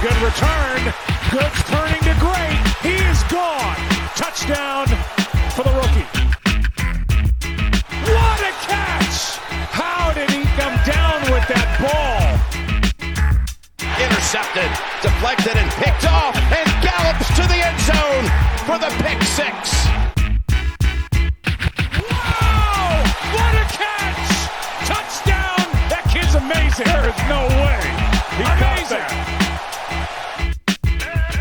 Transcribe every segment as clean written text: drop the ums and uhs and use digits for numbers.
Good return. Good turning to great. He is gone. Touchdown for the rookie. What a catch! How did he come down with that ball? Intercepted, deflected, and picked off, and gallops to the end zone for the pick six. Wow! What a catch! Touchdown! That kid's amazing. There is no way. He amazing.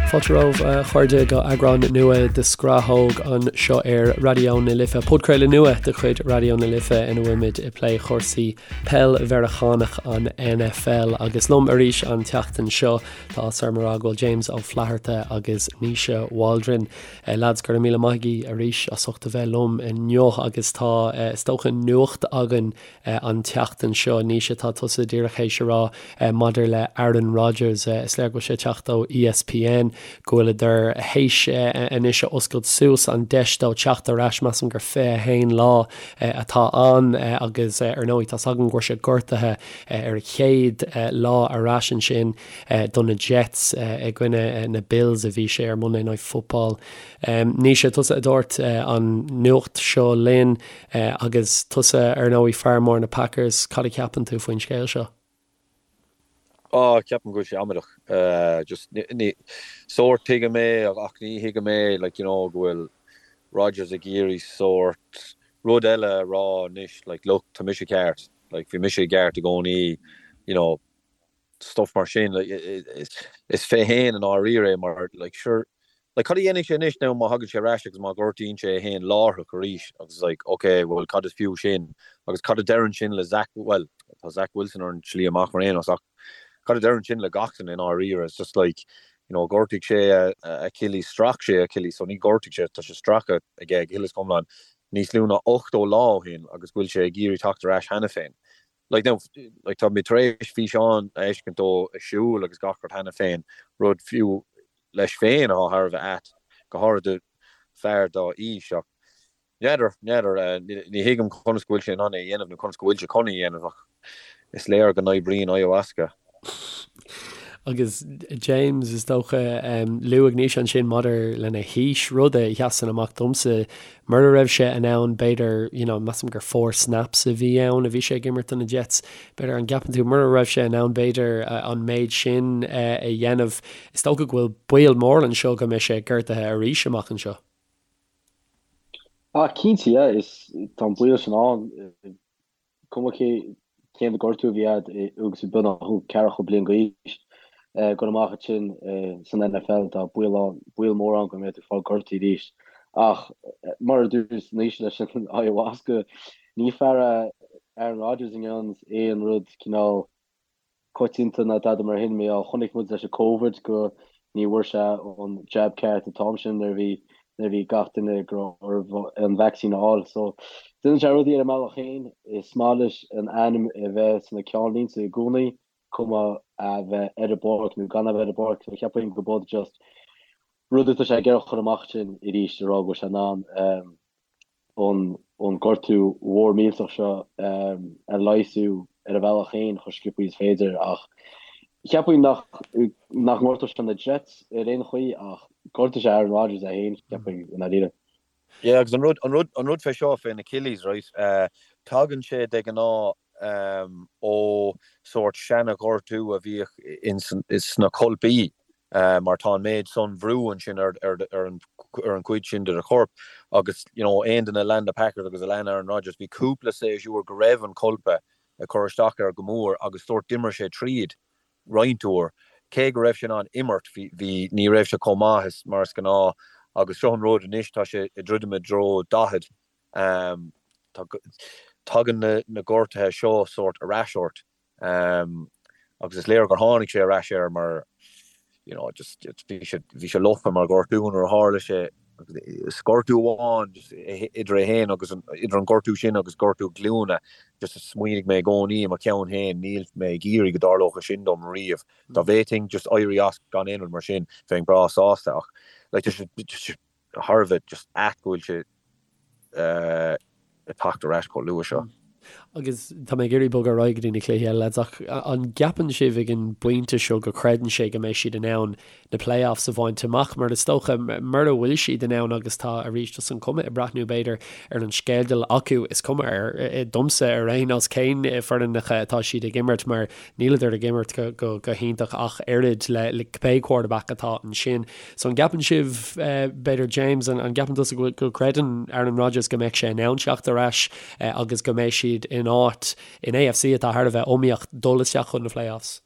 Fáilte romhaibh a chairde go eagrán nua de Scrathóg anseo ar Raidió na Life, podchraoladh nua de chuid Raidió na Life ina bhfuilimid ag plé chúrsaí peil Mheiriceánach an NFL agus liom arís an tseachtain seo tá áthas orm a rá go bhfuil James Ó Flatharta agus Naoise Waldron. Lads, go raibh míle maith agaibh arís as ucht a bheith liom inniu agus tá is dócha nuacht againn an tseachtain seo. Naoise, tá tusa díreach théis a rá maidir le Aaron Rodgers, is léir go bhfuil sé ag teacht ó ESPN, go bhfuileadar théis anois a oscailt suas an deis dó teacht ar ais, measaim gur 21 lá atá ann agus ar ndóigh tá's agam go raibh sé gortaithe ar a chéad lá ar ais ansin do na Jets i gcoinne na Bills a bhí sé ar Monday Night Football. Naoise, tusa a dúirt an nuacht seo linn. Agus tusa, ar ndóigh, fear mór na Packers, cad a cheapann tú faoin scéal seo? Á, ceapaim go bhfuil sé amaideach. Just, ní, sórt tuigim é ach ní thuigim é, like, you know, go bhfuil Rodgers ag iarraidh sórt rud eile a rá anois, like, look, tá mise ceart, like, bhí mise i gceart i gcónaí, you know, stuff mar sin, like, is fé fhéin i ndáiríre é mar, like, sure, like, cad a dhéanfaidh sé anois now má thagann sé ar ais agus má ghortaíonn sé é fhéin láithreach arís agus like, ok, well, cad is fiú sin? Agus cad a deireann sin le Zach, well, tá Zach Wilson ar an tslí amach ar aon nós ach cad a deireann sin le gach duine i ndáiríre? It's just like, you know, ghortaigh sé a Achilles, strach sé a Achilles, so ní ghortaigh sé, tá sé stractha aige go huile is go hiomlán níos lú ná 80 lá ó shin agus go bhfuil sé ag iarraidh teacht ar ais cheana féin. Like now, like tá mé tar éis físeán a fheiscint dó ag siúl agus gach rud cheana féin, rud fiú leis féin atá thar a bheith ait, go háirid do fear dá aois ach n'fheadar, n'fheadar, ní thuigim conas go bhfuil sé in ann é a dhéanamh nó conas go bhfuil sé chun é a dhéanamh ach is léir go n-oibríonn ayahuasca. Agus James, is dócha, luaigh Naoise ansin maidir lena haois, rud a sheasann amach domsa, mura raibh sé in ann, b'fhéidir, you know, measaim gur four snaps a bhí ann a bhí sé ag imirt do na Jets, b'fhéidir, an gceapann tú, mura raibh sé in ann, b'fhéidir, an méid sin a dhéanamh, is dócha go bhfuil baol mór anseo go mbeidh sé gortaithe arís amach anseo. Ah, cinnte, yeah, is tá an baol sin ann. Cuma cé cén gortú a bhí agat agus tú beagnach ceathracha bliain d'aois, dul amach ansin san NFL, tá baol ann, baol mór ann go mbeidh tú ag fáil gortaithe arís. Ach mar a dúirt Naoise leis an ayahuasca, ní fear é Aaron Rodgers a ndéananns aon rud cineál coitianta ná tada mar shin. Mar chonaic muid leis an Covid go ní bhfuair sé an jab ceart an t-am sin nuair a bhí nuair a bhí gach duine go raibh orthu an vaccine a fháil. So déanann sé rudaí ar a mbealach féin. Is maith leis an ainm a bheith sna ceannlínte i gcónaí, cuma a bheith ar an bpáirc nó gan a bheith ar an bpáirc. So cheapfainn go b'in just rud atá sé ag iarraidh a chur amach sin arís a rá go bhfuil sé in ann an gortú mhór millteach seo a leigheasú ar a bhealach féin chomh sciobtha is féidir ach cheapfainn nach nach ngortódh sé na Jets ar aon chaoi ach gortóidh sé Aaron Rodgers é féin cheapfainn i ndáiríre. Yeah agus an rud an rud an rud fé seo fén Achilles right tagann sé de ghnáth ó sórt seana-ghortú a bhíodh ins sna colpaí mar tá an méid san bhrú ansin ar ar an ar an chuid sin de do chorp agus you know aon duine a lean na Packers agus a lean Aaron Rodgers bhí cúpla séasúr go raibh an colpa ag cur isteach air go mór agus sórt d'imir sé tríd roinnt uair cé go raibh sé in ann imirt bhí bhí ní raibh sé chomh maith is mar is gnáth agus seo an rud anois tá sé ag druidim i dtreo 40 Tagann na gortuithe seo sórt ar ais ort agus is léir gur tháinig sé ar ais air mar you know just bhí sé bhí sé lofa mar ghortú nuair a tharla sé is gortú amháin just idir é féin agus an idir an gortú sin agus gortú glúine just smaoinigh mé i gcónaí i mo cheann féin níl mé ag iarraidh go dtarlódh sin dom riamh. Dá bhféadfainn just éirí as gan aon rud mar sin bheinn breá sásta ach like just just thar a bheith just ait go bhfuil sé ag teacht ar ais chomh luath seo. Agus tá mé ag iarraidh bogadh ar aghaidh go dtí na cluichí eile, lads, ach an gceapann sibh ag an bpointe seo go gcreideann sé go mbeidh siad in ann na playoffs a bhaint amach? Mar is dócha, mura bhfuil siad in ann, agus tá arís just an cuma ag breathnú b'fhéidir ar an sceideal acu, is cuma ar, domsa ar aon nós cén foireannacha atá siad ag imirt mar níleadar ag imirt go hiontach ach oiread le cibé quarterback atá ansin. So an gceapann sibh, b'fhéidir James, an gceapann tusa go gcreideann Aaron Rodgers go mbeidh sé in ann teacht ar ais agus go mbeidh siad in áit in AFC atá thar a bheith iomaíoch dul isteach chun na playoffs?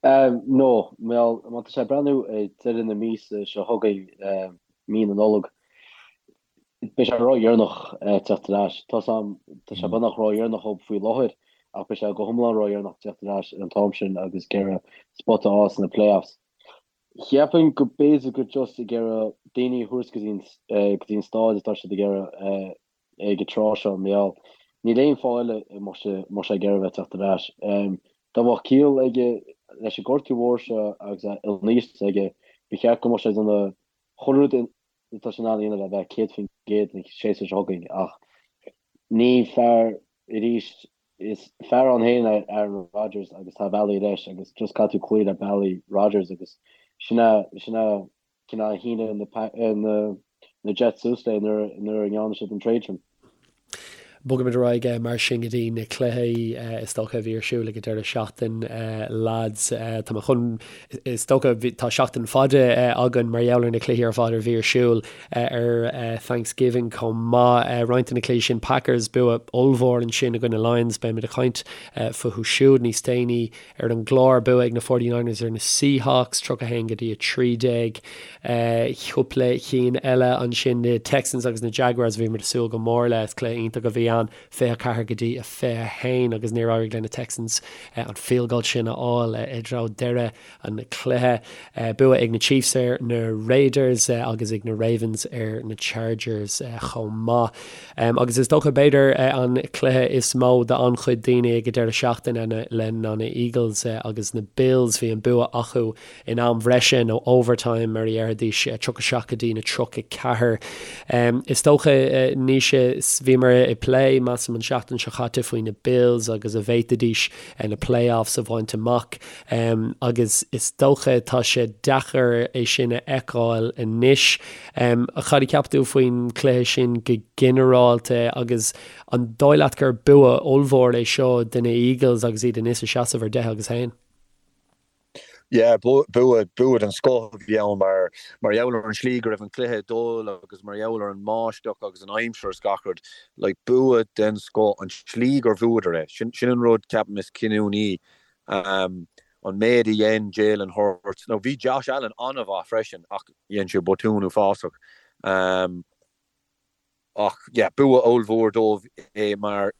No, bhuel, má tá sé ag breathnú ag deireadh na míosa seo chugainn, mí na Nollag, beidh sé ródheireanach teacht ar ais. Tá tá sé beagnach ródheireanach dhóibh faoi láthair ach beidh sé go hiomlán ródheireanach teacht ar ais ar an t-am sin agus ag iarraidh spota a fháil sna playoffs. Cheapfainn go b'fhéidir gur just ag iarraidh daoine a thabhairt go dtí go dtí an stáid atá siad ag iarraidh ag an tráth seo, mar gheall níl aon fáth eile a mbeadh sé mbeadh sé ag iarraidh bheith teacht ar ais. Dá mbeadh ciall aige leis an gortú mhór seo agus an aois atá aige, ba cheart go mbeadh sé ag déanamh chuile rud atá sé in ann a dhéanamh le bheith 100% an séasúr seo chugainn ach ní fear arís Is fear ann féin é Aaron Rodgers agus tá a bhealaí leis agus just caithfidh tú cloí le bealaí Rodgers agus sin é sin é cineál a shínigh na na Jets suas léi nuair nuair a ndearna siad an trade sin. Bogfaimid ar aghaidh mar sin go dtí na cluichí is dócha a bhí ar siúl ag an deireadh seachtain lads. Tá mé chun is dócha tá seachtain fada againn mar gheall ar na cluichí ar fad a bhí ar siúl. ar Thanksgiving chomh maith. Roinnt de na cluichí sin, Packers, bua ollmhór ansin i gcoinne Lions, beimid ag caint fúthu siúd níos déanaí ar an gclár. Bua ag na 49ers ar na Seahawks, 31 go dtí 13. Cúpla cinn eile ansin, na Texans agus na Jaguars, a bhíomar ag súil go mór le, is cluiche iontach a bhí ann, 24 go dtí 21 agus níor éirigh le na Texans an field goal sin a fháil i dtreo deireadh an cluiche. Bua ag na Chiefs ar na Raiders agus ag na Ravens ar na Chargers chomh maith. Agus is dócha b'fhéidir an cluiche is mó d'an-chuid daoine ag an deireadh seachtaine le ná na Eagles agus na Bills. Bhí an bua acu in am bhreise nó overtime mar a dhéarfaidís, 37 go dtí na 34. Is dócha Naoise, bhíomar ag plé, measaim an seachtain seo chaite faoi na Bills agus an bhféadfaidís na playoffs a bhaint amach. Agus is dócha tá sé deacair é sin a fheiceáil anois. Cad a cheap tú faoin chluiche sin go ginearálta agus an dóigh leat gur bua ollmhór é seo do na Eagles agus iad anois ag seasamh ar 10 agus 1? Yeah, bua, bua den scoth a bhí ann mar, mar gheall ar an slí go raibh an cluiche ag dul agus mar gheall ar an mbáisteach agus an aimsir is gach rud. Like, bua den scoth, an tslí gur bhuadar é. Sin, sin an rud, ceapaim, is cinniúnaí. An méid a dhein Jalen Hurts, nó bhí Josh Allen an-mhaith freisin ach dhein sé botún uafásach. Ach yeah, bua ollmhór dóibh é mar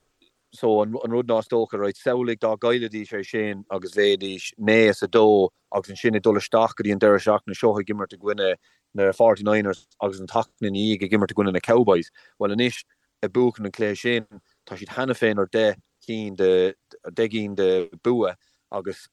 so an rud ná is dócha, right, samhlaigh dá gcaillfidís é sin agus bheidís 9 is 2 agus ansin ag dul isteach go dtí an deireadh seachtaine seo ag imirt i gcoinne na 49ers agus an tseachtain ina dhiaidh ag imirt i gcoinne na Cowboys. Bhuel anois, ag buachan an cluiche sin, tá siad cheana féin ar 10 cinn de, 10 gcinn de bua agus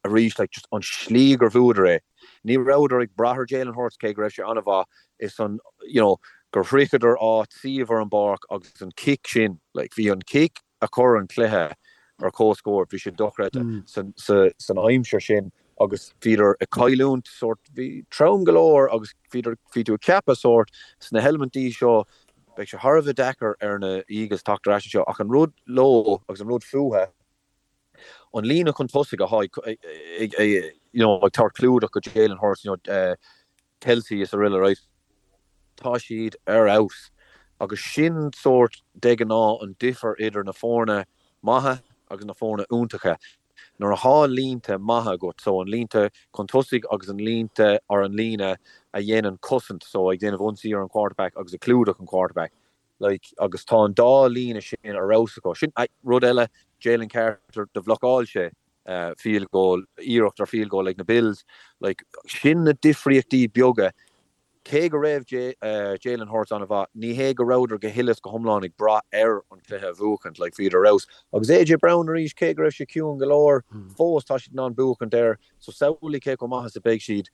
arís like just an slí gur bhuadar é. Ní rabhadar ag brath ar Jalen Hurts cé go raibh sé an-mhaith, is an you know gur shroicheadar áit suíomh ar an bpáirc agus an cic sin like bhí an cic a chuir an cluiche ar comhscór, bhí sé dochreidte san san aimsir sin agus bhíodar ag cailliúint sórt, bhí trom go leor agus bhíodar, bhí tú ag ceapadh sórt sna heilimintí seo beidh sé thar a bheith deacair ar na Eagles teacht ar ais anseo ach an rud leo agus an rud fúthu, an líne chun tosaigh atá ag you know ag tabhairt clúdach go Jalen Hurts, you know Kelce is araile right, tá siad ar fheabhas agus sin sórt de ghnáth an difear idir na foirne maithe agus na foirne iontacha. Nuair atá línte maithe agat, so an línte chun tosaigh agus an línte or an líne a dhéanann cosaint, so ag déanamh ionsaí ar an quarterback agus ag clúdach an quarterback, like agus tá an dá líne sin ar fheabhas acu. Sin rud eile, Jalen Carter, do bhlocáil sé field goal, iarracht ar field goal ag na Bills, like sin na difríochtaí beaga Cé go raibh Jalen Hurts an-mhaith, ní hé go rabhadar go huile is go hiomlán ag brath air an cluiche a bhuachaint, like bhíodar ar fheabhas. Agus AJ Brown arís, cé go raibh sé ciúin go leor, fós tá siad in ann buachaint air, so samhlaigh cé chomh maith is a beidh siad.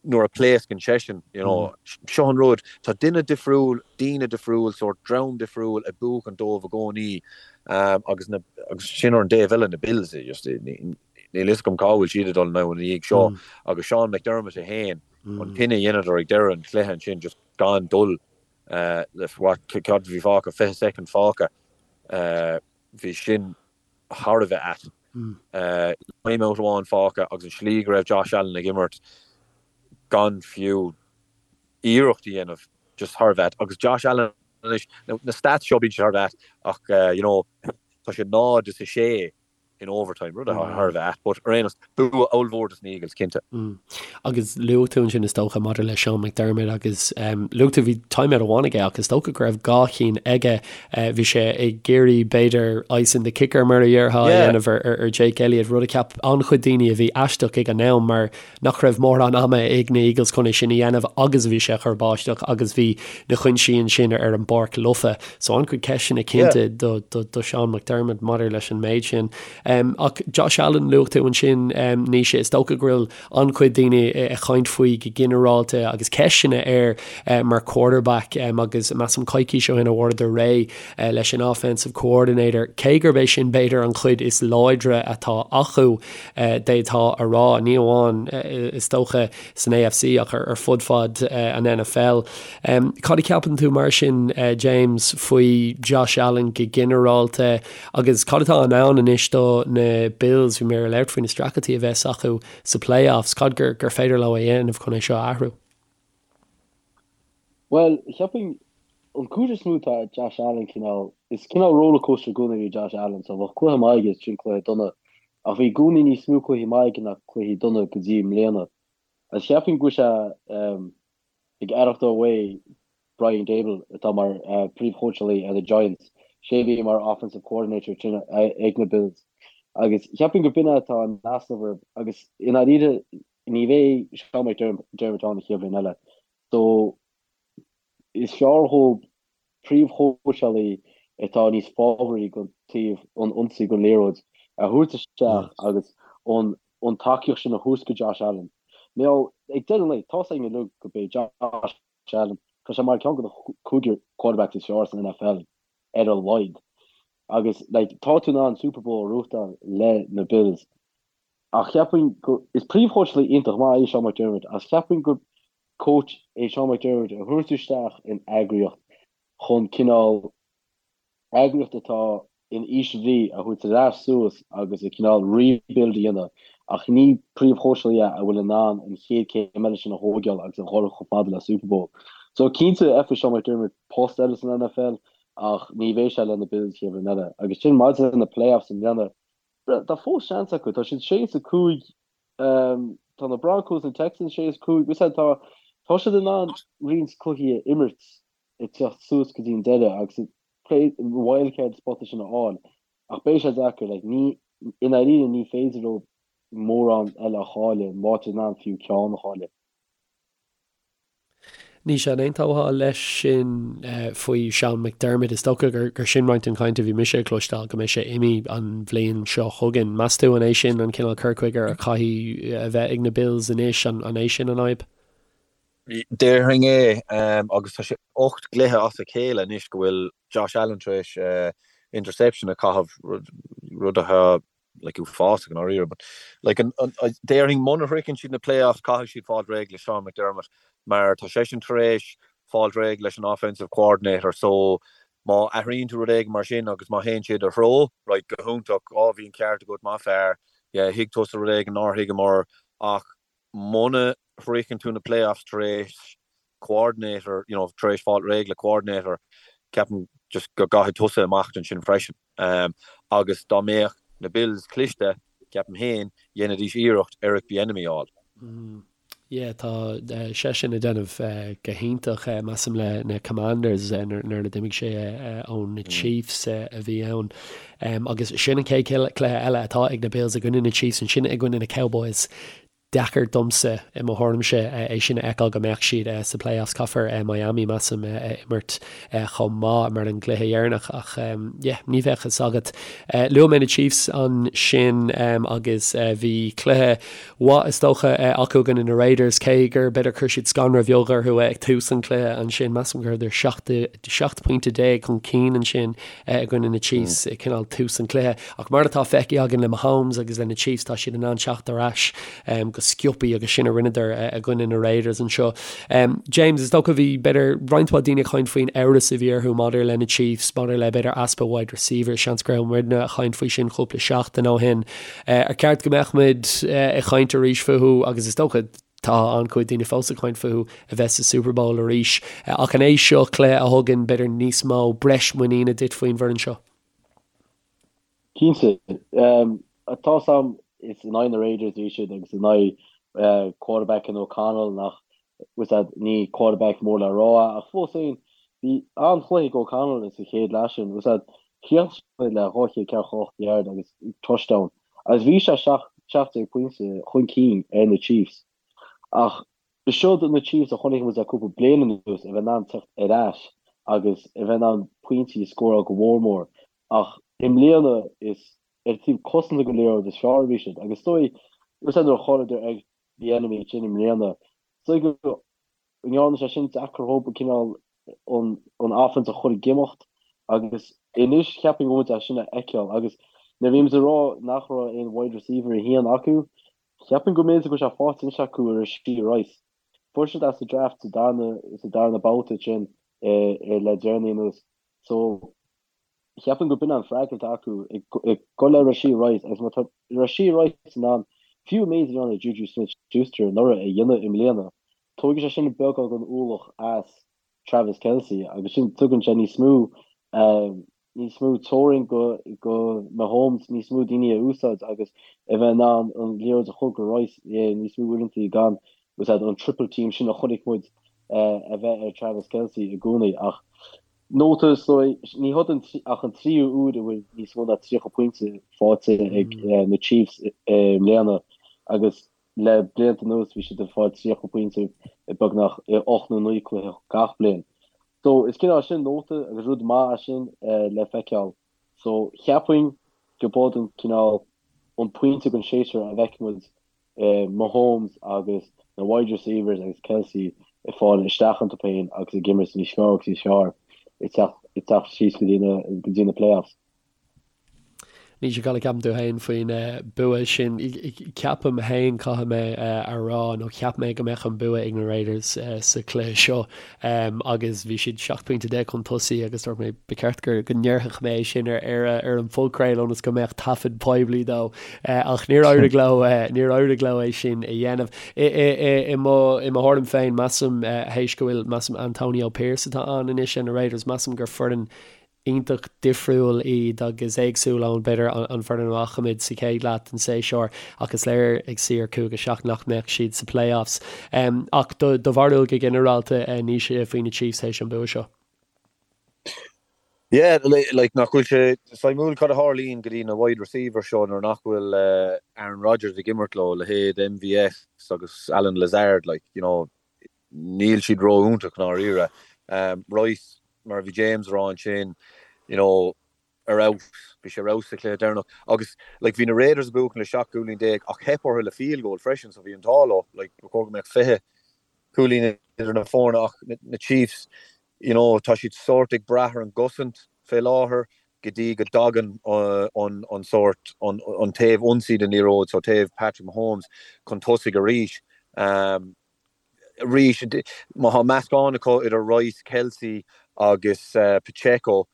nuair a pléascann seisean, you know, seo an rud, tá duine difriúil, daoine difriúil, sórt dream difriúil ag buachan dóibh i gcónaí agus na, agus sin ar an dtaobh eile, na Bills, just, níl fhios agam cá bhfuil siad ag dul now ina dhiaidh seo agus Sean McDermott é féin, an cinneadh a dheineadar ag deireadh an chluiche ansin just gan dul le, what, cad a bhí fágtha, 20 soicind fágtha, bhí sin thar a bheith ait. Timeout amháin fágtha agus an slí go raibh Josh Allen ag imirt gan fiú iarracht a dhéanamh, just thar a bheith ait. Agus Josh Allen anois, na stats seo bíonn siad thar a bheith ait ach you know tá sé 0 is 6 in overtime, rud atá thar a bheith ait. But ar aon nós, bua ollmhór dos na Eagles, cinnte. Agus luaigh tú ansin is dócha maidir le Sean McDermott agus luaigh tú bhí timeout amháin aige ach is dócha go raibh dhá chinn aige. Bhí sé ag iarraidh b'fhéidir icing the kicker mar a dhéarfá a dhéanamh ar Jake Elliott, rud a cheap an-chuid daoine a bhí aisteach ag an am mar nach raibh mórán ama ag na Eagles chun é sin a dhéanamh agus bhí sé ag cur báisteach agus bhí na cuinsí ansin ar an bpáirc lofa. So an-chuid ceisteanna cinnte do do Sean McDermott maidir leis an méid sin. Ach Josh Allen, luaigh tú ansin, Naoise, is dócha go bhfuil an-chuid daoine ag caint faoi go ginearálta agus ceisteanna air mar quarterback agus measaim coicís ó shin a fuaireadar réidh leis an offensive coordinator, cé gurb é sin b'fhéidir an chuid is láidre atá acu, d'fhéadfá a rá, ní amháin is dócha san AFC ach ar fud fad an NFL. Cad a cheapann tú mar sin, James, faoi Josh Allen go ginearálta? Agus cad atá i ndán anois do na Bills? Bhí mé ag labhairt faoi na streachailtí a bheas acu sa playoffs. Cad gur gur féidir leo a dhéanamh chun é seo a athrú? Bhuel, cheapfainn an cúis is mó tá Josh Allen cineál, is cineál rollercoaster i gcónaí é Josh Allen, so bheadh cluiche maith aige is ansin cluiche dona. Ach bhí i gcónaí níos mó cluichí maith aige ná cluichí dona go dtí i mbliana. Agus cheapfainn go bhfuil sé ag aireachtáil uaidh Brian Daboll, atá mar phríomhchóitseálaí ar na Giants, sé a bhí mar offensive coordinator ansin ag na Bills. Agus cheapfainn go b'in é atá in easnamh orthu agus i ndáiríre ní bheidh Sean McDermott ann an chéad bhliain eile. So is fearr dhóibh príomhchóitseálaí atá níos fábhraí don taobh an ionsaí den liathróid a thabhairt isteach agus an an tacaíocht sin a thabhairt go Josh Allen. Now, ag deireadh an lae, tá's againn uilig go b'é Josh Allen, tá sé mar ceann de na cúigear quarterbacks is fearr san NFL ar a laghad. Agus like, tá tú in ann Super Bowl a ghnóthachtáil le na Bills. Ach cheapfainn go, is príomhchóitseálaí iontach maith é Sean McDermott, ach cheapfainn gur coach é Sean McDermott a thabhairt isteach in eagraíocht chun cineál eagraíocht atá in ísle brí a thabhairt ar ais suas agus a cineál rebuild a dhéanamh ach ní príomhchóitseálaí é a bhfuil in ann an chéad céim eile sin a thógáil agus a dhul chomh fada le Super Bowl. So cinnte faighidh Sean McDermott post eile san NFL ach ní bheidh sé le na Bills chéad bhliain eile. Agus sin maidir le na playoffs i mbliana, tá fós seans acu, tá siad 6 is 5, tá na Broncos na Texans 6 is 5, tá tá siad in ann roinnt cluichí a imirt ag teacht suas go dtí an deireadh agus wildcard spota sin a fháil ach beidh sé deacair, like, ní, i ndáiríre ní féidir leo mórán eile a chailleadh, má tá siad in ann fiú ceann a chailleadh. Naoise, an aontófá leis sin faoi Sean McDermott? Is dócha gur sin roinnt den chaint a bhí mise ag cloisteáil, go mbeidh sé imithe an bhliain seo chugainn. Meas tú an é sin an cineál cur chuige a chaithfidh a bheith ag na Bills anois? An é sin an fhadhb? Déarfainn é, agus tá sé 8 gcluiche as a chéile anois go bhfuil Josh Allen tar éis interception a chaitheamh, rud atá like uafásach i ndáiríre. But like an, an, déarfainn muna shroicheann siad na playoffs caithfidh siad fáil réidh le Sean McDermott mar tá seisean tar éis fáil réidh leis an offensive coordinator so má athraíonn tú rud éigin mar sin agus má théann sé i do threo, right, go hiontach, á bhí an ceart agat, maith fear, yeah, thuig tusa rud éigin nár thuigeamar ach muna shroicheann tú na playoffs tar éis coordinator, you know, tar éis fáil réidh le coordinator, ceapaim just go gcaithfidh tusa imeacht ansin freisin. Um, agus dá mbeadh na Bills cliste, ceapaim féin, dhéanfaidís iarracht Eric Bieniemy a fháil. Mm. Yeah, tá uh, seisean ag déanamh uh, go hiontach uh, measaim le na Commanders uh, nuair a d'imigh sé uh, ó na mm. Chiefs uh, a bhí ann. Um, agus sin an chéad cluiche eile atá ag na Bills i gcoinne na Chiefs ansin i gcoinne na Cowboys. Deacair domsa, i mo thuairimse, é sin a fheiceáil go mbeadh siad sa playoffs. Caithfear Miami, measaim, a imirt chomh maith mar an gcluiche dheireanach ach yeah, ní bheadh fhios agat. Luaigh mé na Chiefs ansin agus bhí cluiche mhaith is dócha acu i gcoinne na Raiders, cé gur b'fhéidir chuir siad scanradh bheag orthu ag tús an chluiche ansin. Measaim go rabhadar 17 pointe chun cinn ansin i gcoinne na Chiefs ag cineál tús an chluiche. Ach mar atá feicthe againn le Mahomes agus le na Chiefs, tá siad in ann teacht ar ais go sciobtha agus sin a rinneadar i gcoinne na Raiders anseo. James, is dócha bhí b'fhéidir roinnt mhaith daoine ag caint faoin amhras a bhí orthu maidir le na Chiefs, maidir le b'fhéidir easpa wide receivers, seans go raibh muidne ag caint faoi sin cúpla seachtain ó shin. Ar cheart go mbeadh muid ag caint arís fúthu agus is dócha Tá an-chuid daoine fós ag caint fúthu a bheith sa Super Bowl arís. Ach an é seo cluiche a thugann b'fhéidir níos mó breis muiníne duit faoin bhfoireann seo? Cinnte. Tá's a'm is in aghaidh na Raiders a bhí siad agus in aghaidh quarterback in O'Connell nach bhfuil 's a'd ní quarterback mór le rá é ach fós féin bhí an-chluiche ag O'Connell sa chéad leath sin. Bhfuil 's a'd chríochnaigh sé le 248 yard agus touchdown. Agus bhí sé 17 pointe chun cinn ar na Chiefs. Ach seod na Chiefs a chonaic muid le cúpla bliain anuas a bheith in ann teacht ar ais agus a bheith in ann pointí a scóráil go mhór mór. Ach i mbliana is ar taobh cosanta den liathróid is fearr a bhí siad. Agus is dóigh, nuair a chailleadar ag Bieniemy ansin i mbliana, is dóigh go ndearna sé sin deacair dhób an cineál an offense a chur ag imeacht agus anois cheapfainn go bhfuil muid é sin a fheiceáil agus nuair a bhí muid ag rá nach raibh aon wide receiver a haon acu, cheapfainn go mb'fhéidir go bhfuil sé faighte anois acu i Rashee Rice. Fuair siad é sa draft sa darna sa darna babhta sin le deireanaí anuas so Cheapfainn go b'in an freagra atá acu ag dul le Rashee Rice agus má tá Rashee Rice in ann fiú an méid a rinne Juju Smith-Schuster anuraidh a dhéanamh i mbliana, tógfaidh sé sin beagán den ualach as Travis Kelce agus sin tugann sé níos mó níos mó teorainn go go Mahomes níos mó daoine a úsáid agus a bheith in ann an liathróid a chur go Rice níos mó uaireanta gan an triple team sin a chonaic muid a bheith ar Travis Kelce i gcónaí ach Nóta, Ní hod ach an tríú uair a bhfuil níos mó ná 30 pointe faighte ag na Chiefs i mbliana agus le blianta anuas bhí siad ag fáil 30 pointe i beagnach 8 nó 9 cluiche gach bliain. So is cineál sin nóta agus rud maith é sin le feiceáil. So cheapfainn go b'od an cineál an pointe den séasúr a bhfeicfidh muid Mahomes agus na wide receivers agus Kelce ag fáil isteach iontu féin agus ag imirt níos fearr agus níos fearr ag teacht síos go dtí na playoffs. Naoise, cad a cheapann tú féin faoin bua sin? Ceapaim féin, caithfidh mé a rá, nó cheap mé go mbeadh an bua ag na Raiders sa chluiche seo agus bhí siad 17 pointe chun tosaigh agus dúirt mé ba cheart go ndéarfadh mé é sin ar an phodchraoladh ionas go mbeadh taifead poiblí dó. Ach níor éirigh leo, níor éirigh leo é sin a dhéanamh. I mo thuairim féin, measaim, théis go bhfuil, measaim Antonio Pierce atá ann anois ar na Raiders, measaim gur foireann iontach difriúil iad agus éagsúil ón, b'fhéidir, an foireann a bhfaca muid sa chéad leath den séasúr ach is léir ag suí ar 5-7 nach mbeadh siad sa playoffs. Ach do bharúil go ginearálta, Naoise, faoi na Chiefs théis an bua seo? Yeah, like nach bhfuil sé suimiúil cad a tharlaíonn go dtí na wide receivers seo nuair nach bhfuil Aaron Rodgers ag imirt leo, leithéid MVS agus Allen Lazard, like, you know, níl siad ró-iontach i ndáiríre. Rice, mar a bhí James a rá ansin, you know, ar fheabhas, bhí sé ar fheabhas sa chluiche deireanach agus like bhí na Raiders ag buachan le 17 cúilín ach theip orthu le field goal freisin so bhí an t-ádh leo, like ba chóir go mbeadh 20 cúilín idir na foirne ach na Chiefs, you know, tá siad sórt ag brath ar an gcosaint fé láthair go dtí go dtagann an an sórt an an taobh ionsaí den liathróid, so taobh Patrick Mahomes chun tosaigh arís. Um, arís, má tá meascán acu idir Rice, Kelce agus uh, Pacheco,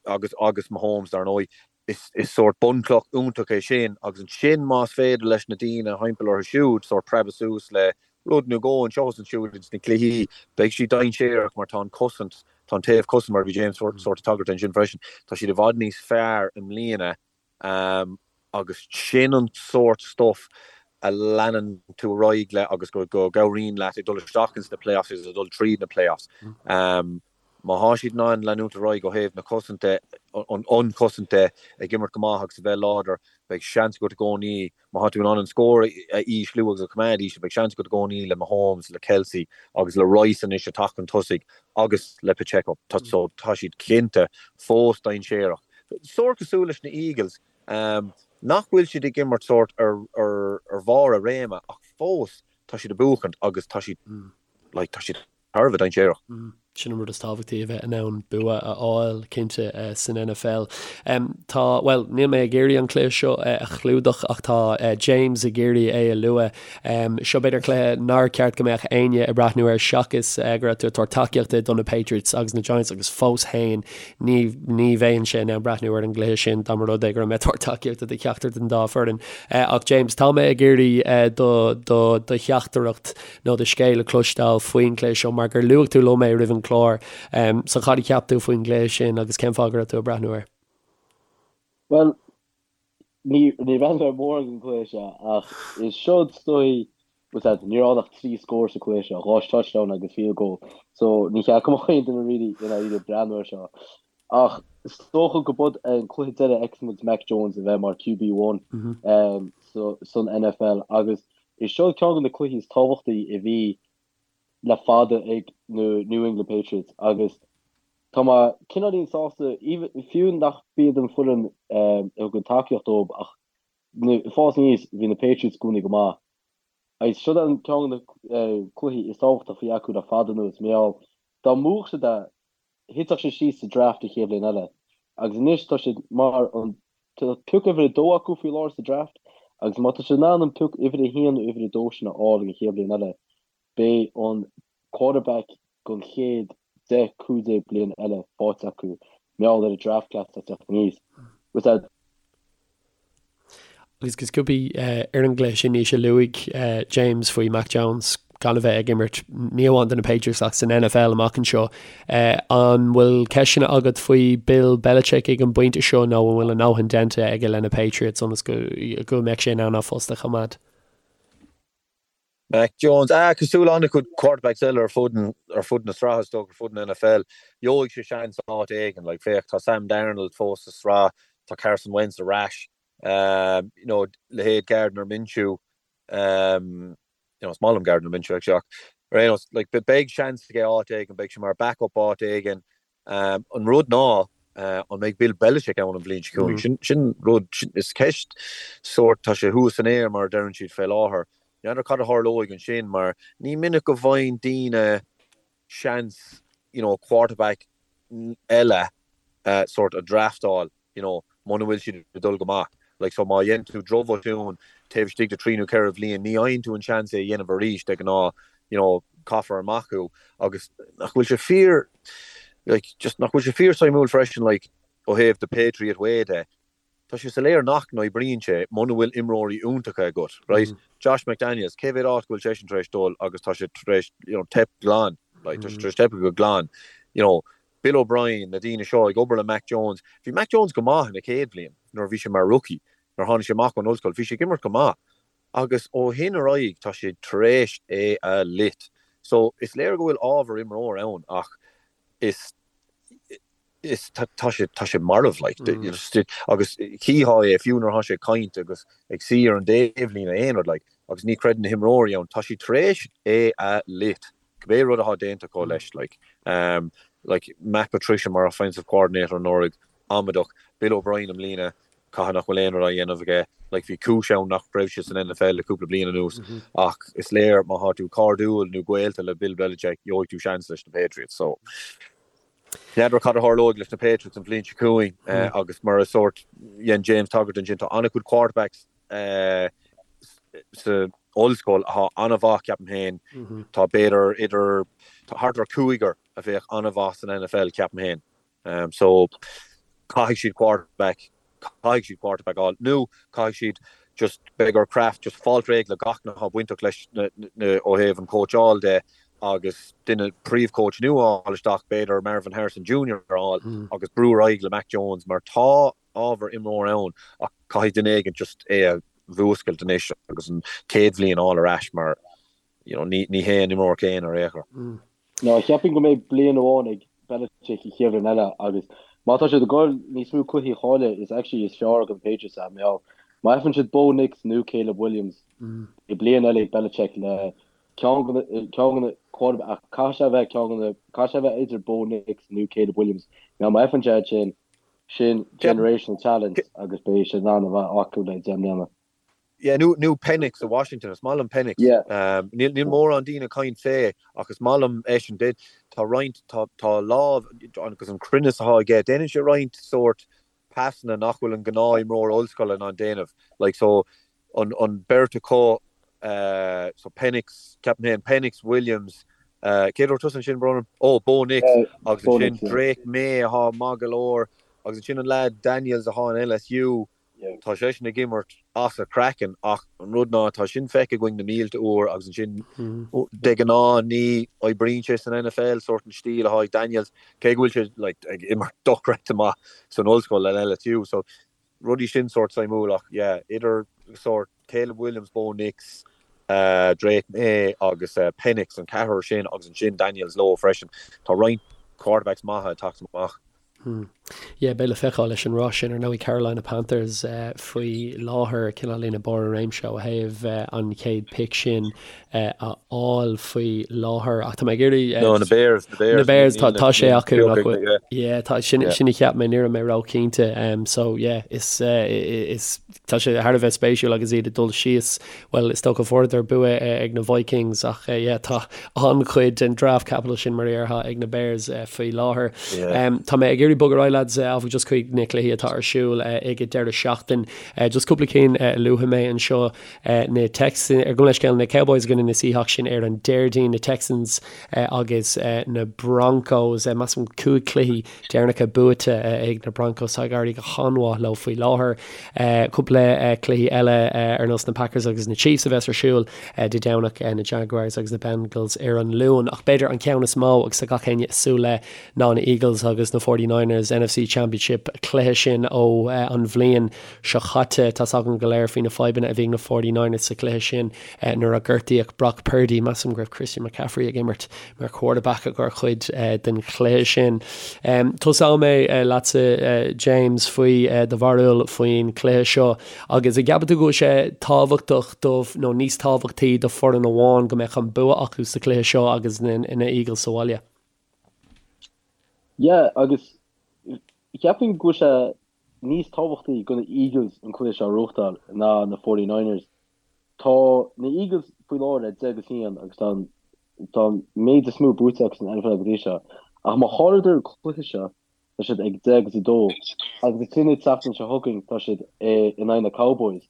agus agus Mahomes dar ndóigh, is is sórt bunchloch iontach é sin agus ansin más féidir leis na daoine thimpeall orthu siúd sórt preabadh suas le rud nó dhó anseo is ansiúd ins na cluichí, beidh siad dainséarach mar tá an cosaint, tá an taobh cosaint mar a bhí James sórt ag tagairt ansin freisin, tá siad i bhfad níos fearr i mbliana agus sin an sórt stuff a leanann tú ar aghaidh le agus go go gcabhraíonn leat ag dul isteach ins na playoffs agus ag dul tríd na playoffs. Má thá siad in ann leanúint ar aghaidh ó thaobh na cosanta, an chosaint de, ag imirt go maith agus a bheith láidir, beidh seans agat i gcónaí, má thá tú in ann an scór a ísliú agus a choimeád íseal, beidh seans agat i gcónaí le Mahomes, le Kelce agus le Rice anois ag teacht chun tosaigh agus le Pacheco. Tá so tá siad cinnte fós dainséarach. Sórt cosúil leis na Eagles, nach bhfuil siad ag imirt sórt ar ar bharr a réime ach fós tá siad ag buachaint agus tá siad like tá siad thar a bheith dainséarach. Sin an rud is tábhachtaí, a bheith in ann bua a fháil, cinnte, san NFL. Tá, bhuel, níl mé ag iarraidh an cluiche seo a chlúdach ach tá James ag iarraidh é a lua. Seo b'fhéidir cluiche nár cheart go mbeadh éinne ag breathnú air seachas go raibh tú ag tabhairt tacaíochta do na Patriots agus na Giants agus fós féin ní, ní bheinnse in ann breathnú ar an gcluiche sin dá mba rud é go raibh mé ag tabhairt tacaíochta do cheachtar den dá foireann. Ach James, tá mé ag iarraidh do, do, do theachtaireacht nó do scéal a chloisteáil faoin gcluiche seo mar gur luaigh tú liom é roimh an chlár. So cad a cheap tú faoin gcluiche sin agus cén fáth go raibh tú ag breathnú air? Bhuel, ní ní bhreathnaigh mé mórán den chluiche seo ach is seo is dóigh bhfuil a fhios agat, ní raibh ann ach 3 scór sa chluiche seo, 2 touchdown agus field goal. So ní cheart go mbeadh aon duine really i ndáiríre ag breathnú air seo. Ach is dócha go b'shiod an cluiche deiridh a fheicfidh muid Mac Jones a bheith mar QB 1 san NFL agus is seo ceann de na cluichí is tábhachtaí a bhí le fada ag na New England Patriots agus tá mé cineáilín sásta, fiú nach b'iad an foireann a thugann tacaíocht dóibh ach ag fás aníos bhí na Patriots i gcónaí go maith. Agus seo an ceann de na cluichí is tábhachtaí a bhí acu le fada anuas mar gheall dá mbuafadh siad é thitfeadh siad síos sa draft an chéad bhliain eile agus anois tá siad mar an tá pioc uimhir a dó acu faoi láthair sa draft agus má tá siad in ann an pioc uimhir a haon nó uimhir a dó sin a fháil an chéad bhliain eile beidh an quarterback don chéad 10, 15 bliain eile faighte acu mar gheall ar an draft class atá ag teacht aníos. With that. Agus go sciobtha ar an gcluiche sin, Naoise, luaigh James faoi Mac Jones gan a bheith ag imirt ní amháin do na Patriots ach san NFL amach anseo. An bhfuil ceisteanna agat faoi Bill Belichick ag an bpointe seo nó an bhfuil a ndóthain déanta aige le na Patriots ionas go go mbeadh sé in ann a phost a choimeád? Mac Jones, ah, cosúil le an-chuid quarterbacks eile ar fud ar fud na sraithe is dócha, ar fud an NFL, gheobhaidh sé seans áit éigin. Like, féach, tá Sam Darnold fós sa sraith, tá Carson Wentz ar ais. you know, leithéid Gardner Minshew, um, you know, is maith liom Gardner Minshew actually, ach ar aon nós, like, beidh seans aige áit éigin, beidh sé mar backup áit éigin. Um, an rud ná, uh, an mbeidh Bill Belichick ann an bhliain seo chugainn? Mm. Sin, sin rud, sin, is ceist sórt, tá sé thuas san aer mar a deireann siad fé láthair. N'fheadar cad a tharlóidh ansin mar ní minic go bhfaigheann daoine seans, you know, quarterback eile sórt a draftáil, you know, muna bhfuil siad ag dul go maith. Like, so má dhéanann tú drochbhotún taobh istigh de thrí nó ceithre bhliain, ní fhaigheann tú an seans é a dhéanamh arís, de ghnáth, you know, caithfear amach thú. Agus nach bhfuil sé fíor, like, just nach bhfuil sé fíor suimiúil freisin, like, ó thaobh the Patriot way de, Tá sé soiléir nach n-oibríonn sé muna bhfuil imreoirí iontacha agat, right? Josh McDaniels, cé mhéad áit go bhfuil seisean tar éis dul agus tá sé tar éis, you know, teip glan, like, tá sé tar éis teipeadh go glan. You know, Bill O'Brien, na daoine seo ag obair le Mac Jones, bhí Mac Jones go maith ina chéad bhliain nuair a bhí sé mar rookie, nuair a tháinig sé amach ón ollscoil, bhí sé ag imirt go maith. Agus ó shin ar aghaidh tá sé tar éis é a loit. So, is léir go bhfuil ábhar imreoir ann ach is is tá sé tá sé marbh like agus chífeá é fiú nuair atá sé ag caint agus ag suí ar an dtaobhlíne aon rud like agus ní chreideann na himreoirí ann tá siad tar éis é a loit cibé rud atá déanta acu leis like um like Matt Patricia mar offensive coordinator anuraidh amaideach Bill O'Brien i mbliana Caithfidh nach bhfuil aon rud á dhéanamh aige. Like, bhí cúis ann nach raibh sé san NFL le cúpla bliain anuas ach is léir má thá tú cairdiúil nó gaolta le Bill Belichick, gheobhaidh tú seans leis na Patriots. So, n'fheadar cad a tharlóidh leis na Patriots an bhliain seo chugainn agus mar a sórt dhein James tagairt ansin, tá an-chuid quarterbacks sa ollscoil athá an-mhaith, ceapaim féin. Tá b'fhéidir idir, tá thart ar cúigear a bheadh an-mhaith san NFL, ceapaim féin. So, caithfidh siad quarterback, caithfidh siad quarterback a fháil, nó caithfidh siad just, beidh ar Kraft just fáilt réidh le gach duine atá bainteach leis na, na, ó thaobh an chóitseáil de agus duine, príomh-coach nua a fháil isteach, b'fhéidir Marvin Harrison Junior a fháil agus brú ar aghaidh le Mac Jones mar tá ábhar imreoir ann ach caithfidh duine éigin just é a mhúscailt anois agus an chéad bhliain a fháil ar ais mar, you know, ní, ní hé an imreoir céanna ar aon chor. Ná, cheapfainn go mbeidh bliain amháin ag. Belichick an chéad bhliain eile agus má tá siad ag goil níos mó cluichí a chailleadh is actually is fearr do na Patriots é mar má fhaigheann siad Bo Nix nó Caleb Williams beidh bliain eile ag Belichick le ceann de na ceann de na quarterback ach caithfidh sé a bheith ceann de na caithfidh sé a bheith idir Bo Nix nó Caleb Williams mar má fhaigheann sé sin sin generational talent agus beidh sé in ann a bheith acu le 10 mbliana. Yeah, nó, nó Penix i Washington, is maith liom Penix. Yeah. Níl, níl mórán daoine ag caint fé, ach is maith liom eisean. Dé, tá roinnt, tá, tá lámh, agus an cruinneas atá aige, déanann sé roinnt sórt pasanna nach bhfuil an gnáth-imreoir ollscoile in ann déanamh. Like, so, an, an beirt acu, eh, so Penix, ceapaim féin, Penix, Williams, eh, cé dúirt tusa ansin, Ronan? Oh, Bo Nix, agus Bo ansin Nix, yeah. Drake Maye atá maith go leor, agus ansin an lad Daniels atá in LSU, Tá seisean ag imirt as a chraiceann ach an rud ná tá sin feicthe againn na mílte uair agus ansin de ghnáth ní oibríonn sé san NFL, sórt an stíl atá ag Daniels, cé go bhfuil sé like ag imirt dochreidte maith san ollscoil in LSU. So rudaí sin sórt suimiúil ach yeah idir sórt Caleb Williams, Bo Nix, Drake Maye agus Penix an ceathrar sin agus ansin Daniels leo freisin. Tá roinnt quarterbacks maithe ag teacht amach. Yeah, beidh le feiceáil leis an rás sin ar ndóigh Carolina Panthers faoi láthair cineál ina barr a réimse ó thaobh an chéad pick sin a fháil faoi láthair ach tá mé ag iarraidh No, na Bears, na Bears. Na Bears, tá tá sé acu nach bhfuil. Yeah, tá sin sin a cheap mé ní raibh mé róchinnte. So yeah, is is Tá sé thar a bheith spéisiúil agus iad ag dul síos, bhuel, is dócha fuaireadar bua ag na Vikings ach yeah, tá an-chuid den draft capital sin mar a déarfá ag na Bears faoi láthair. Tá mé ag iarraidh bogadh ar aghaidh lads áfach just chuig na cluichí atá ar siúl ag an deireadh seachtain. Just cúpla cinn a luafaidh mé anseo, na Texans, gabh mo leithscéal, na Cowboys i gcoinne na Seahawks sin ar an Déardaoin, na Texans agus na Broncos, measaim 5 cluichí deireanacha buaite ag na Broncos. Tá ag éirí go han-mhaith leo faoi láthair. Cúpla cluichí eile ar nós na Packers agus na Chiefs a bheas ar siúl Dé Domhnach, na Jaguars agus na Bengals ar an Luan. Ach b'fhéidir an ceann is mó agus tá gach éinne ag súil le ná na Eagles agus na 49ers, NFC Championship cluiche sin ó an bhliain seo chaite. Tá's againn go léir faoi na fadhbanna a bhí ag na 49ers sa chluiche sin nuair a gortaíodh Brock Purdy. Measaim go raibh Christian McCaffrey ag imirt mar quarterback ar chuid den chluiche sin. Tosóidh mé leatsa James faoi do bharúil faoin chluiche seo agus an gceapann tú go bhfuil sé tábhachtach do nó níos tábhachtaí do foireann amháin go mbeadh an bua acu sa chluiche seo agus na Eagles sa bhaile? Yeah agus cheapfainn go bhfuil sé níos tábhachtaí do na Eagles an cluiche seo a ghnóthachtáil ná na 49ers. Tá na Eagles faoi láthair ar 10 agus 1 agus tá an tá an méid is mó buaite acu san NFL go dtí seo. Ach má chailleadar an cluiche seo, tá siad ag 10 agus 2 agus ansin an tseachtain seo chugainn tá siad in aghaidh na Cowboys.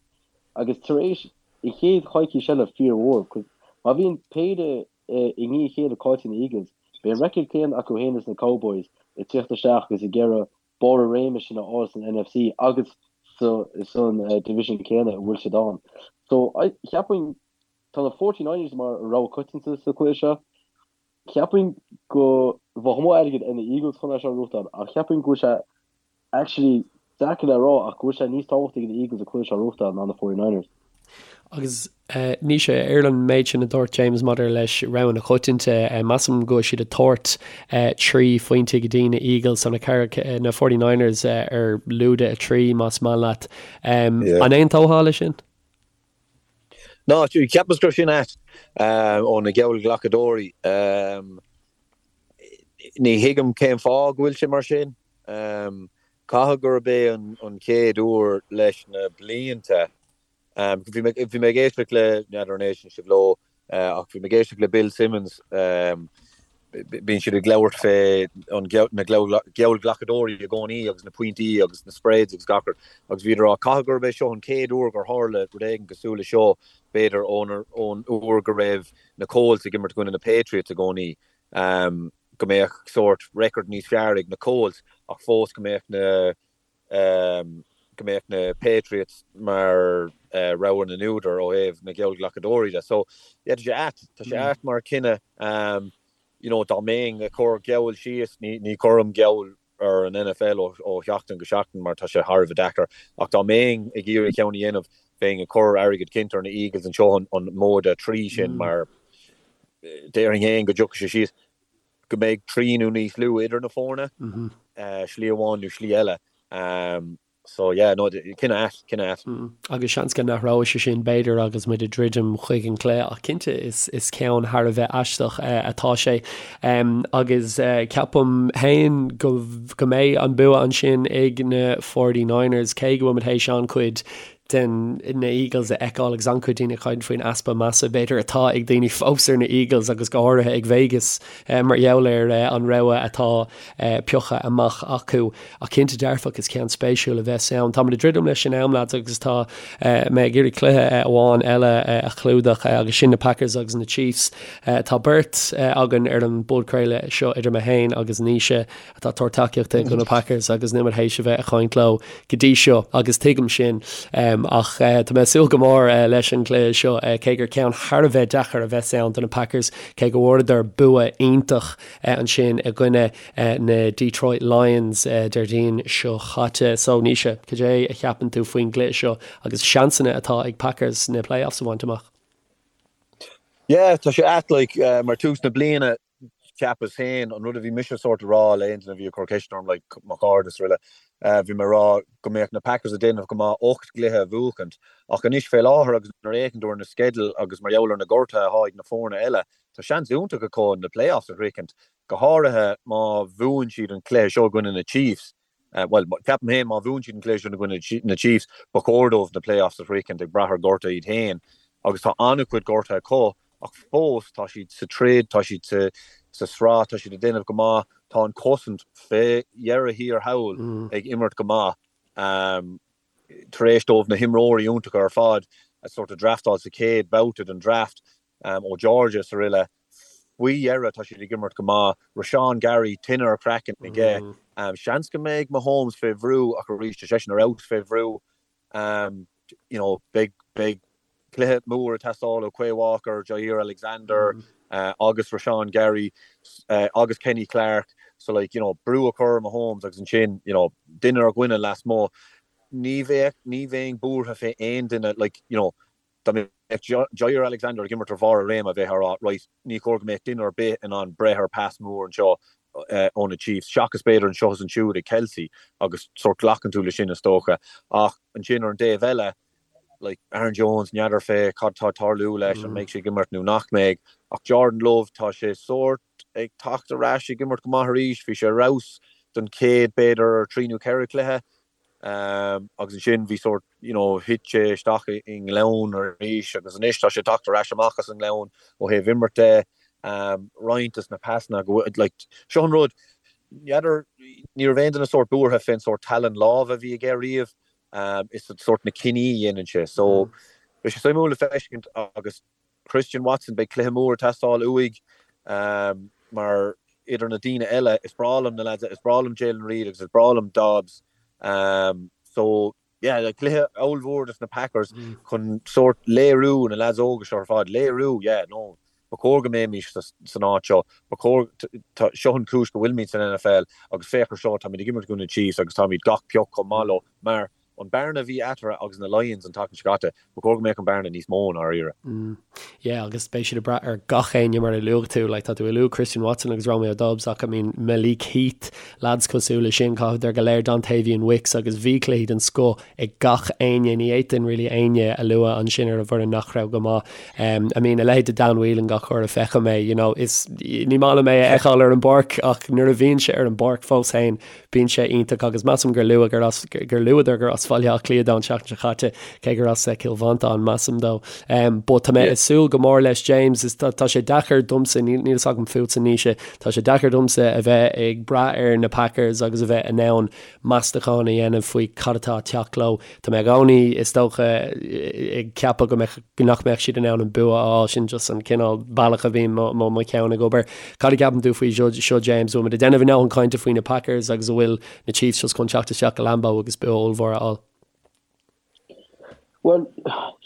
Agus tar éis an chéad choicís eile fíormhór, 'cause má bhíonn péire i ndiaidh a chéile caillte ag na Eagles, beidh an record céanna acu féin is na Cowboys ag tíocht isteach agus ag iarraidh barr a réime sin a fháil san NFC agus san division céanna a bhfuil siad ann. So, cheapfainn, tá na 49ers mar rogha coitianta sa chluiche seo. Cheapfainn go bheadh mó airgead ar na Eagles chun é seo a ghnóthachtáil ach cheapfainn go bhfuil sé actually deacair le rá ach go bhfuil sé níos tábhachtaí do na Eagles an cluiche seo a ghnóthachtáil ná na 49ers. Agus Naoise, ar an méid sin a dúirt James maidir leis rogha na coitianta, measaim go bhfuil siad ag tabhairt 3 phointe go dtí na Eagles, so na na 49ers ar lúide 3 más maith leat. An aontófá leis sin? Ná, cheapas go raibh sin ait ó na geallghlacadóirí. Ní thuigim cén fáth go bhfuil sé mar sin. Caithfidh gurb é an chéad uair leis na blianta Bhí mé bhí mé ag éisteacht le, n'fheadar an éisteann sibh leo, ach bhí mé ag éisteacht le Bill Simmons, bíonn siad ag labhairt fé an na geallghlacadóirí i gcónaí agus na pointí agus na spreads agus gach rud agus bhíodar ag rá caithfidh gurb é seo an chéad uair gur tharla rud éigin cosúil le seo, b'fhéidir ón ón uair go raibh na Colts ag imirt i gcoinne na Patriots i gcónaí, go mbeadh sórt record níos fearr ag na Colts ach fós go mbeadh na go mbeadh na Patriots mar rogha na n-údar ó thaobh na geallghlacadóirí de. So, yeah, tá sé ait. Tá sé ait mar chinneadh. You know, dá mbeinn ag cur geall síos, ní, ní chuirim geall ar an NFL ó, ó sheachtain go seachtain mar tá sé thar a bheith deacair, ach dá mbeinn ag iarraidh ceann a dhéanamh, bheinn ag cur airgead cinnte ar na Eagles anseo an, an móide 3 sin mar déarfainn féin go dtiocfaidh sé síos. go mbeidh 3 nó níos lú idir na foirne, slí amháin nó slí eile. So yeah, no, cinneadh ait, cinneadh ait. Agus seans go n-athróidh sé sin, b'fhéidir, agus muid ag druidim chuig an gcluiche, ach cinnte is is ceann thar a bheith aisteach atá sé. Agus ceapaim féin go go mbeidh an bua ansin ag na 49ers, cé go bhfuil muid théis an-chuid den na Eagles a fheiceáil agus an-chuid daoine ag caint faoin easpa measa, b'fhéidir, atá ag daoine fós ar na Eagles agus go háirithe ag Vegas mar gheall ar an rogha atá pioctha amach acu. Ach cinnte dearfach, is ceann spéisiúil a bheas ann. Táimid ag druidim leis an am, lads, agus tá mé ag iarraidh cluiche amháin eile a chlúdach agus sin na Packers agus na Chiefs. Tá beirt againn ar an bpodchraoladh seo idir mé féin agus Naoise atá ag tabhairt tacaíochta do na Packers agus níl muid théis a bheith ag caint leo go dtí seo agus tuigim sin ach tá mé ag súil go mór leis an gcluiche seo cé gur ceann thar a bheith deacair a bheas ann do na Packers cé go bhfuaireadar bua iontach ansin i gcoinne na Detroit Lions Déardaoin seo chaite. So Naoise, cad é a cheapann tú faoin gcluiche seo agus seansanna atá ag Packers na playoffs a bhaint amach? Yeah, tá sé ait like mar tús na bliana cheapas féin, an rud a bhí mise sórt a rá le aon duine a bhí ag cur ceisteanna orm, like mo chairde is araile, bhí mé ag rá go mbeadh na Packers ag déanamh go maith 8 gcluiche a bhuachaint. Ach anois fé láthair agus nuair a fhéachann tú ar na sceidil agus mar gheall ar na gortuithe atá ag na foirne eile, tá seans iontach acu na playoffs a shroichint, go háirithe má bhuann siad an cluiche seo i gcoinne na Chiefs. Bhuel, ceapaim féin má bhuann siad an cluiche seo i gcoinne na Chiefs, ba chóir dóibh na playoffs a shroichint ag brath ar ghortuithe iad féin agus tá an-chuid gortuithe acu ach fós tá siad sa troid, tá siad sa sraith, tá siad ag déanamh go maith, tá an chosaint fé dheireadh thiar thall ag imirt go maith. Tar éis dóibh na himreoirí iontacha ar fad a sort of draftáil sa chéad bhabhta den draft ó Georgia is araile, Faoi dheireadh, tá siad ag imirt go maith. Rashan Gary, tine ar a chraiceann aige. Seans go mbeidh Mahomes fé bhrú ach arís, tá seisean ar fheabhas fé bhrú. You know, beidh, beidh cluiche mór ag teastáil ó Quay Walker, Jaire Alexander agus Rashan Gary agus Kenny Clark. So like, you know, brú a chur ar Mahomes agus ansin, you know, duine ar dhuine lasmuigh. Ní bheadh, ní bheinn buartha fé aon duine, like, you know, Dá mbeadh Jaire Alexander ag imirt ar bharr a réime, bheifeá ag rá, right, ní chóir go mbeadh duine ar bith in ann breith ar pas mór anseo ó na Chiefs, seachas b'fhéidir anseo is ansiúd ag Kelce, agus sórt glacann tú leis sin is dócha. Ach ansin ar an dtaobh eile, like, Aaron Jones, n'fheadar fé cad tá ag tarlú leis, an mbeidh sé ag imirt nó nach mbeidh. Ach Jordan Love, tá sé sórt ag teacht ar ais, ag imirt go maith arís, bhí sé ar fheabhas don chéad, b'fhéidir, trí nó ceithre chluiche. Agus ansin bhí sórt, you know, thit sé isteach i ngleann arís agus anois tá sé ag teacht ar ais amach as an ngleann ó thaobh imirt de. Roinnt des na pasanna go bhfuil, like, seo an rud, n'fheadar, ní raibh aon duine sórt buartha fén sórt tallann láimhe a bhí aige riamh, is sórt na cinní a dhéanann sé. So, beidh sé suimiúil le feiscint agus Christian Watson, beidh cluiche mór ag teastáil uaidh mar idir na daoine eile, is breá liom na lads, is breá liom Jayden Reed agus is breá liom Doubs. So, yeah, cluiche ollmhór dos na Packers chun sórt léiriú, na lads óga seo ar fad, léiriú, yeah, no, ba chóir go mbeimis san áit seo, ba chóir, seo an chúis go bhfuilimid san NFL agus féach ar seo, táimid ag imirt i gcoinne na Chiefs agus táimid gach pioc chomh maith leo mar An bearna a bhí eatarthu agus na Lions an tseachtain seo caite, ba chóir go mbeadh an bearna níos mó i ndáiríre. Yeah, agus beidh siad ag brath ar gach éinne mar a luaigh tú. Like, tá tú ag lua Christian Watson agus Romeo Doubs ach I mean Malik Heath, lads cosúil leis sin, caithfidh go léir Dontayvion Wicks agus bhí cluichí den scoth ag gach éinne. Ní fhéadfainn really éinne a lua ansin ar an bhfoireann nach raibh go maith. Um, I mean, a leithéid de Dan Whelan gach uair a feicim é, you know, is ní maith liom é a fheiceáil ar an bpáirc ach nuair a bhíonn sé ar an bpáirc fós féin, Bíonn sé iontach agus measaim gur luadh gur as, gur luadar gur as Bhaile Átha Cliath dó an tseachtain seo chaite, cé gur as Cill Mhantáin, measaim dó. But tá mé ag súil go mór leis James, is tá sé deacair domsa, níl níl fhios agam fútsa Naoise, tá sé deacair domsa a bheith ag brath ar na Packers agus a bheith in ann meastachán a dhéanamh faoi cad atá ag teacht leo. Tá mé i gcónaí, is dócha, ag ceapadh go mbeadh, nach mbeadh siad in ann an bua a fháil, sin just an cineál bealach a bhíonn mo, mo, mo cheann ag obair. Cad a cheapann tú faoi seo, seo James? Bhfuil muid ag déanamh a ndóthain cainte faoi na Packers agus an bhfuil na Chiefs just chun teacht isteach go Lambeau agus bua ollmhór a fháil? Bhuel,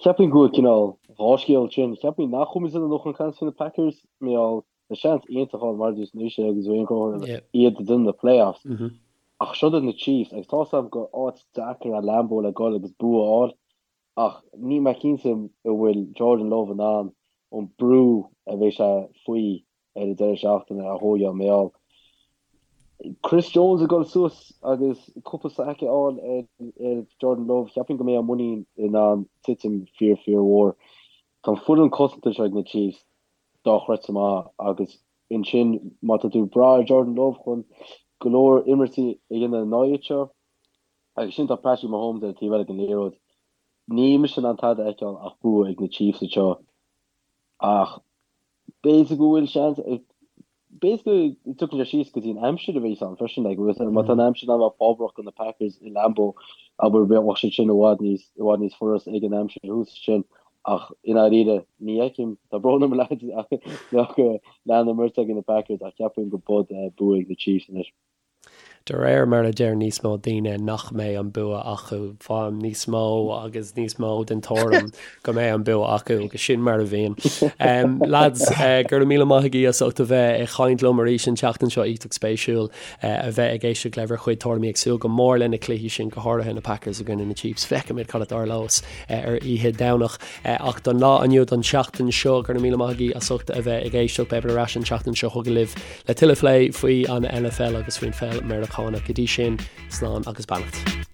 cheapfainn go bhfuil cineál dhá scéal ansin. Cheapfainn nach bhfuil muid ag déanamh a ndóthain cainte faoi na Packers, mar gheall tá seans iontach ann mar a dúirt Naoise agus Wayne Cohen iad ag déanamh na playoffs. Ach seo iad na Chiefs agus tá 'fhios a'm gur áit deacair é Lambeau le dhul agus bua a fháil ach níl mé cinnte an bhfuil Jordan Love in ann an brú a bheidh sé faoi. ar an deireadh seachtaine ar dhóigh á mbeál. Chris Jones ag dul suas agus cúpla sack a fháil ar Jordan Love, cheapfainn go mbeidh a muinín in ann titim fíor fíor mhór. Tá an foireann cosanta seo ag na Chiefs dochreidte maith agus ansin má tá tú ag brath ar Jordan Love chun go leor imirtí a dhéanamh in aghaidh seo agus sin tá Patrick Mahomes ar an taobh eile den liathróid. Níl mise in ann tada a fheiceáil ach bua ag na Chiefs anseo ach B'fhéidir go bhfuil seans, b'fhéidir go dtiocfaidh sé síos go dtí an aimsir a bheas ann freisin, like, má tá an aimsir in ann a bheith fábhrach do na Packers i Lambeau, abair, bheadh sé sin i bhfad níos, i bhfad níos furast ag an aimsir thuas ansin, ach i ndáiríre, ní fheicim, tá brón orm lads, ach go leanann imirt ag na Packers ach cheapfainn go bud bua ag na Chiefs anois. De réir mar a deir níos mó daoine nach mbeidh an bua acu, faighim níos mó agus níos mó den tuairim go mbeidh an bua acu agus sin mar a bhíonn. Lads, go raibh míle maith agaibh as ucht a bheith ag caint liom arís an tseachtain seo, iontach spéisiúil a bheith ag éisteacht le bhur chuid tuairimí ag súil go mór le na cluichí sin, go háirithe na Packers i gcoinne na Chiefs. Feicfimid cad a tharlós ar oíche Domhnach. Ach don lá inniu, don tseachtain seo, go raibh míle maith agaibh as ucht a bheith ag éisteacht. Beimid ar ais an tseachtain seo chugainn libh. Le tuilleadh plé faoi an NFL agus faoin pheil Meiriceánach. Go dtí sin, slán agus beannacht.